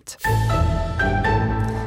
Kand.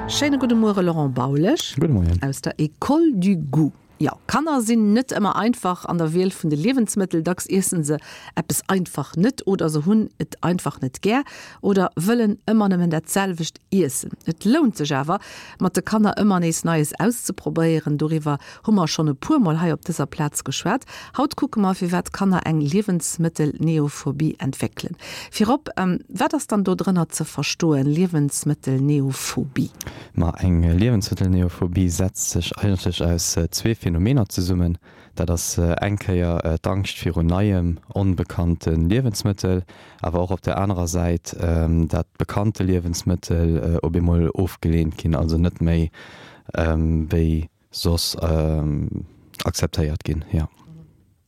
Schéine gudde Muere Laurent Baulesch. Gudde Moien. Aus der École du Goût. Jo, Kanner sinn net ëmmer einfach an der Wiel vun de Liewensmëttel. Dacks iessen se eppes einfach net oder se hunn et einfach net gär oder wëllen ëmmer nëmmen dat selwecht iessen. Et lount sech awer, mat de Kanner ëmmer nees Neies auszeprobéieren. Doriwwer hu mer schonn e puer Mol hei op dëser Plaz geschwat. Haut kucke mer, firwat Kanner eng Liewensmëttelneophobie entwéckelen. Virop, wat ass dann do drënner ze verstoen, Liewensmëttelneophobie? Ma eng Liewensmëttelneophobie setzt sech eigentlech aus zwee Phänomener zesummen. Dat ass eng Kéier d'Angscht virun neiem, onbekannte Liewensmëttel, awer och op der anerer Säit, dat bekannte Liewensmëttel op eemol ofgeleent ginn, also net méi wéi soss akzeptéiert ginn, jo.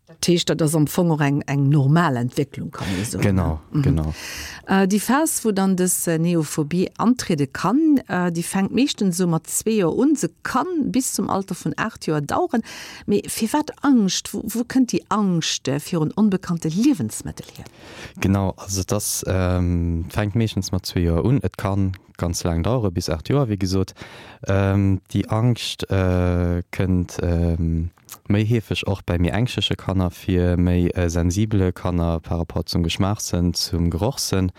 Dat heescht, dat ass am Fong och eng, eng normal Entwécklung, kann ee soen. Genau, genau. Déi Phas, wou dann dës Neophobie antriede kann, déi fänkt meeschtens esou mat zwee Joer un. Se kann bis zum Alter vun 8 Joer daueren. Mee firwat Angscht? Wou, wou kënnt déi Angscht virun onbekannte Liewensmëttel hier? Genau, also et ass, fänkt meeschtens mat zwee Joer un. Et kann ganz laang dauere, bis 8 Joer, wéi gesot. Déi Angscht kënnt méi heefeg och bäi méi ängschleche Kanner vir, méi sensibele Kanner par rapport zum Geschmaachssënn, zum Gerochssënn.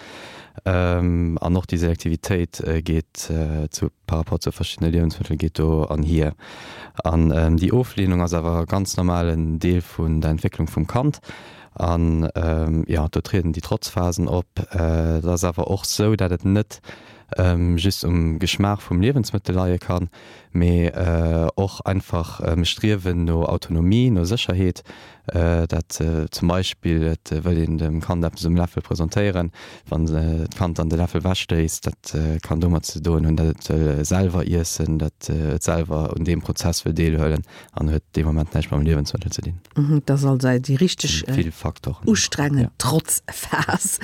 An och déi Selektivitéit geet zu par rapport zu verschiddene Liewensmëttel geet do anhier. An déi Oflehnung ass awer ganz normalen Deel vun der Entwécklung vum Kand. An jo, do trieden déi Trotzphasen op. Et ass awer och sou, dat et net just um Geschmaach vum Liewensmëttel leie kann, mee och einfach Striewen no Autonomie, no Sécherheet, dat zum Beispill et wëll een dem Kand eppes um Läffel presentéieren, wann d'Kand dann de Läffel wechstéisst, dat kann domat ze doen hunn, dat et wëll selwer iessen, dat et selwer un deem Prozess wëll deelhuelen an huet dee Moment näischt mam Liewensmëttel ze dinn. Dat ass also déi richteg ustrengend Trotzphas.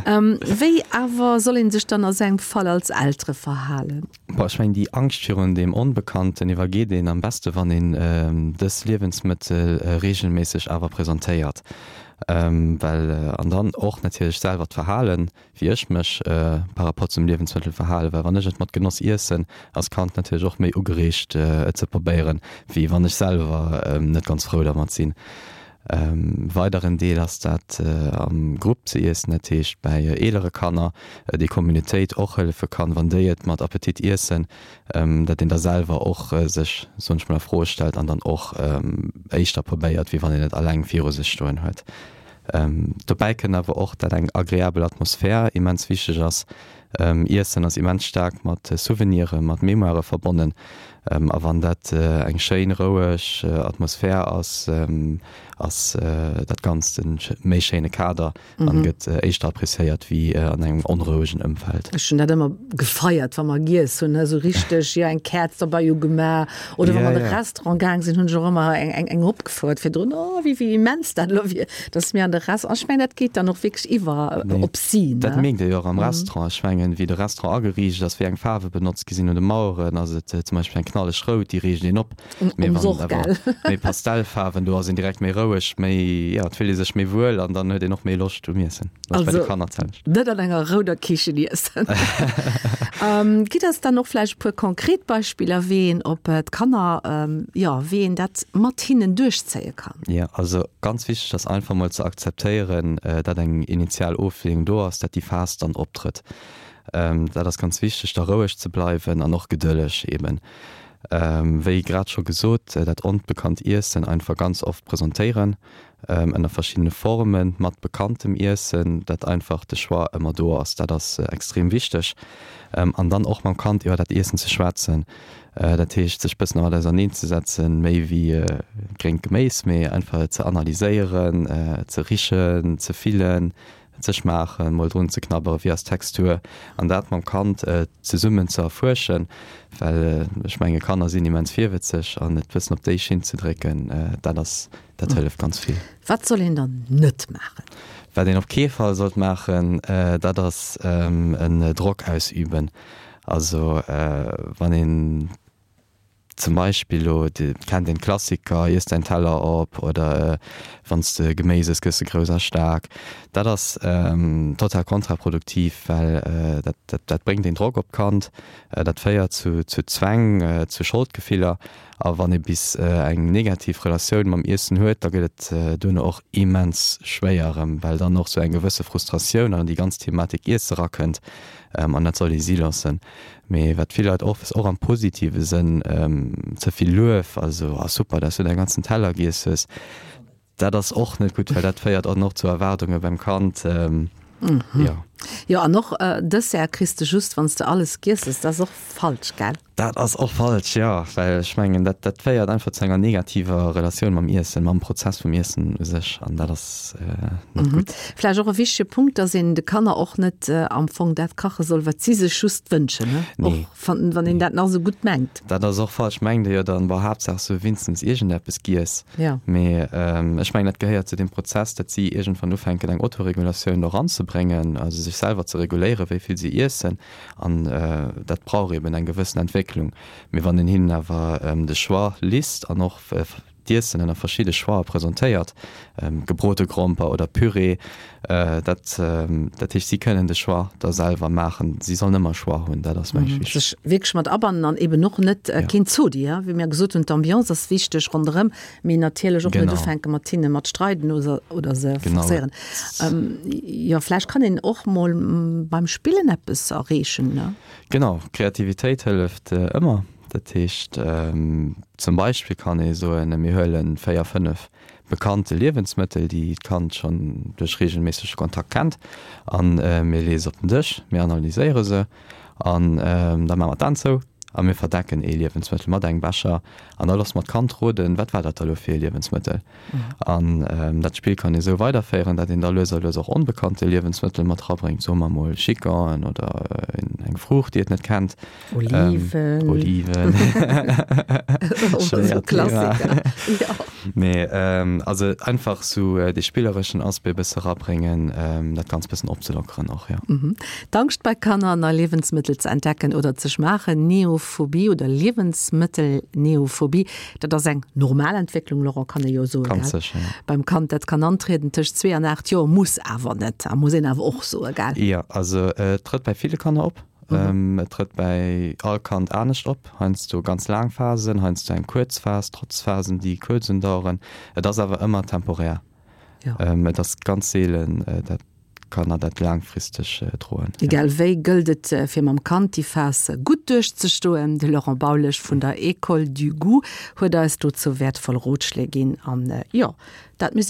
Wéi awer soll ee sech dann a sou engem Fall als Eltere verhalen? Bon, ech mengen, déi Angscht virun deem Onbekannten iwwergeet een am beste wann een dës Liewensmëttel reegelméisseg awer presentéiert. Well, an dann och natierlech selwer d'Verhalen, wéi ech mech par rapport zum Liewensmëttel verhalen, well wann ech et mat Genoss iessen, ass d'Kand natierlech och méi ugereegt et ze probéieren, wéi wann ech selwer net ganz frou dermat sinn. Weideren Deel ass dat am Grupp ze iessen, dat heescht bäi eelere Kanner, déi Communautéit och hëllefe kann, wann déi et mat Appetit iessen, dat een da selwer och sech, soen ech mol, a Froe stellt an dann och éischter probéiert, wéi wann een et alleng viru sech stoen huet. Dobäi kënnt awer och, dat eng agreabel Atmosphär immens wichteg ass. Iessen ass immens staark mat Souvenire, mat Mémoirë verbonnen. A wann dat eng schéin, roueg Atmosphär ass, ass dat Ganzt e méi schéine Kader an gëtt éischter appréciéiert wéi an engem onrouegen Ëmfeld. Ech hunn dat ëmmer gefeiert, wa mer giess hunn, esou richteg, jo, eng Käerz derbei ugemaach oder wa mer an de Restaurant gaang sinn, hunn ech och ëmmer eng opgefouert virdrun, oh, wéi immens dat elo wier. Dass mir an de Restaurant, ech mengen, dat geet dann och wierklech iwwer op si, ne? Dat mierkt ee jo och am Restaurant. Ech mengen, wéi de Restaurant ageriicht ass, wéi eng Faarwe benotzt gi sinn un de Maueren, ass et zum Beispill eng knalleg rout, déi reegt een op. Mee wann et awer méi Pastellfaarwen, do ass een direkt méi roueg, méi, jo, et fillt ee sech méi wuel an dann huet een och méi Loscht um Iessen. Dat ass bei de Kanner d'selwecht. Also net an enger rouder Kichen iessen. Gitt eis dann och vläicht e puer konkret Beispiller, wéi een op d'Kanner, jo, wéi een dat mat hinnen duerchzéie kann. Jo, also ganz wichteg ass einfach mol ze akzeptéieren, dat eng initial Oflehnung do ass, dat déi Phas dann optrëtt. Dat ass ganz wichteg, da roueg ze bleiwen an och gedëlleg eben. Wéi grad scho gesot, dat onbekannt Iessen einfach ganz oft presentéieren, ënner verschiddene Formen, mat bekanntem Iessen, dat einfach de Choix ëmmer do ass, dat ass extrem wichteg. An dann och mam Kand iwwer dat Iessen ze schwätzen, dat heescht sech bëssen dermat auserneen ze setzen, méi wéi gréngt Geméis, mee einfach et ze analyséieren, ze richen, ze fillen, ze schmaachen, mol drun ze knabberen, wéi ass d'Textur, an dat mam Kand zesummen ze erfuerschen, well ech menge Kanner sinn immens virwëtzeg an et bëssen op déi Schinn ze drécken, dat ass, dat hëlleft ganz vill. Wat soll een dann net maachen? Wat een op kee Fall sollt maachen, dat ass en Drock ausüben. Also wann een. Zum Beispill elo, et kennt een d'Klassiker, Iess däin Teller op oder Wann s de Geméis ëss, gëss de grouss a staark. Dat ass total kontraproduktiv, well dat dat bréngt een Drock op d'Kand, dat féiert zu zu Zwäng, zu Scholdgefiller. A wann ee bis eng negativ Relatioun mam Iessen huet, da gëtt et duerno och immens schwéier erëm, well dann och sou eng gewësse Frustratioun an déi ganz Thematik Iesse rakënnt an dat soll ee si loossen. Mee wat vill Leit och, och am positive Sënn, ze vill Luef, also ah super, dass du däi ganzen Teller giess hues, dat ass och net gutt, well dat féiert dann och zu Erwaardunge beim Kand. Jo. Jo, an och Dessert kriss de just, wann s de alles giess hues, dat ass och falsch, gell? Dat ass och falsch, jo, well ech mengen, dat, dat féiert einfach zu enger negativer Relatioun mam Iessen, mam Prozess vum Iessen u sech, an dat ass net gutt. Vläicht och e wichtege Punkt, dass een de Kanner och net am Fong dat kache soll, wat si sech just wënschen, ne? Nee. Och wann, wann een dat nach esou gutt mengt. Dat ass och falsch. Mengt ee jo dann, boah, Haaptsaach se hu wéinstens iergendeppes giess. Ja. Mee ech mengen, dat gehéiert zu deem Prozess, datt si iergendwann ufänken, eng Autoregulatioun do eranzebréngen, also sech selwer ze reguléieren, wéi vill si iessen. An dat brauch eben eng gewëssen Entwécklung. Mee wann een hinnen awer de Choix lisst an och d'Iessen ënner verschidde Choixë presentéiert, gebrote Gromper oder Püree, dat, dat heescht, si kënnen de Choix da selwer maachen. Si sollen ëmmer Choix hunn, dat ass, meng ech, wichteg. Sech wierklech mat abannen an eben och net keen Zodi, wéi mir gesot hunn, d'Ambiance ass wichteg ronderëm, Mee natierlech och net ufänke mat hinne mat streiden oder, oder se forcéieren. Jo, vläicht kann een och mol beim Spillen eppes erreechen, ne? Genau, Kreativitéit hëlleft ëmmer. Dat heescht, zum Beispill kann ee soen, mir huele 4, 5 bekannte Liewensmëttel, déi d'Kand schonn duerch reegelméissege Kontakt kennt, a mir leeë se op den Dësch, mir analyséiere se an da maache mer d'Aen zou a mir verdecken ee Liewensmëttel mat engem Becher an da loosse mer d'Kand roden, wat war dat da lo fir ee Liewensmëttel. An dat Spill kann ee sou weiderféieren, dat een da lues a lues och onbekannte Liewensmëttel mat rabréngt, soe mer mol Chicor'en oder eng Fruucht, déi et net kennt. Oliven. Oliven. Schwéiert Thema. Klassiker. Jo. Mee also einfach sou dee spillereschen Aspect e bësse rabréngen, dat Ganzt bëssen opzelockeren och, jo. D'Angscht bei Kanner, nei Liewensmëttel ze entdecken oder ze schmaachen, Neophobie oder Liewensmëttelneophobie, dat ass eng normal Entwécklung, Laurent, kann ee jo soen, gell? Ganz sécher, jo. Beim Kand, dat kann antrieden tëscht zwee an 8 Joer, muss awer net a muss een awer och soen, gell? Jo, also et trëtt bei ville Kanner op. Et trëtt bäi all Kand anescht op, heiansdo ganz laang Phasen, heiansdo eng kuerz Phas, trotz Phasen, déi kuerz undaueren. Et ass awer ëmmer temporär. Et ass ganz seelen, dat Kanner dat laangfristeg droen. Egal wéi gëllt et fir mam Kand déi Phas gutt duerchzestoen. De Laurent Baulesch vun der École du Goût huet eis dozou wäertvoll Rotschléi ginn an jo, dat misst een.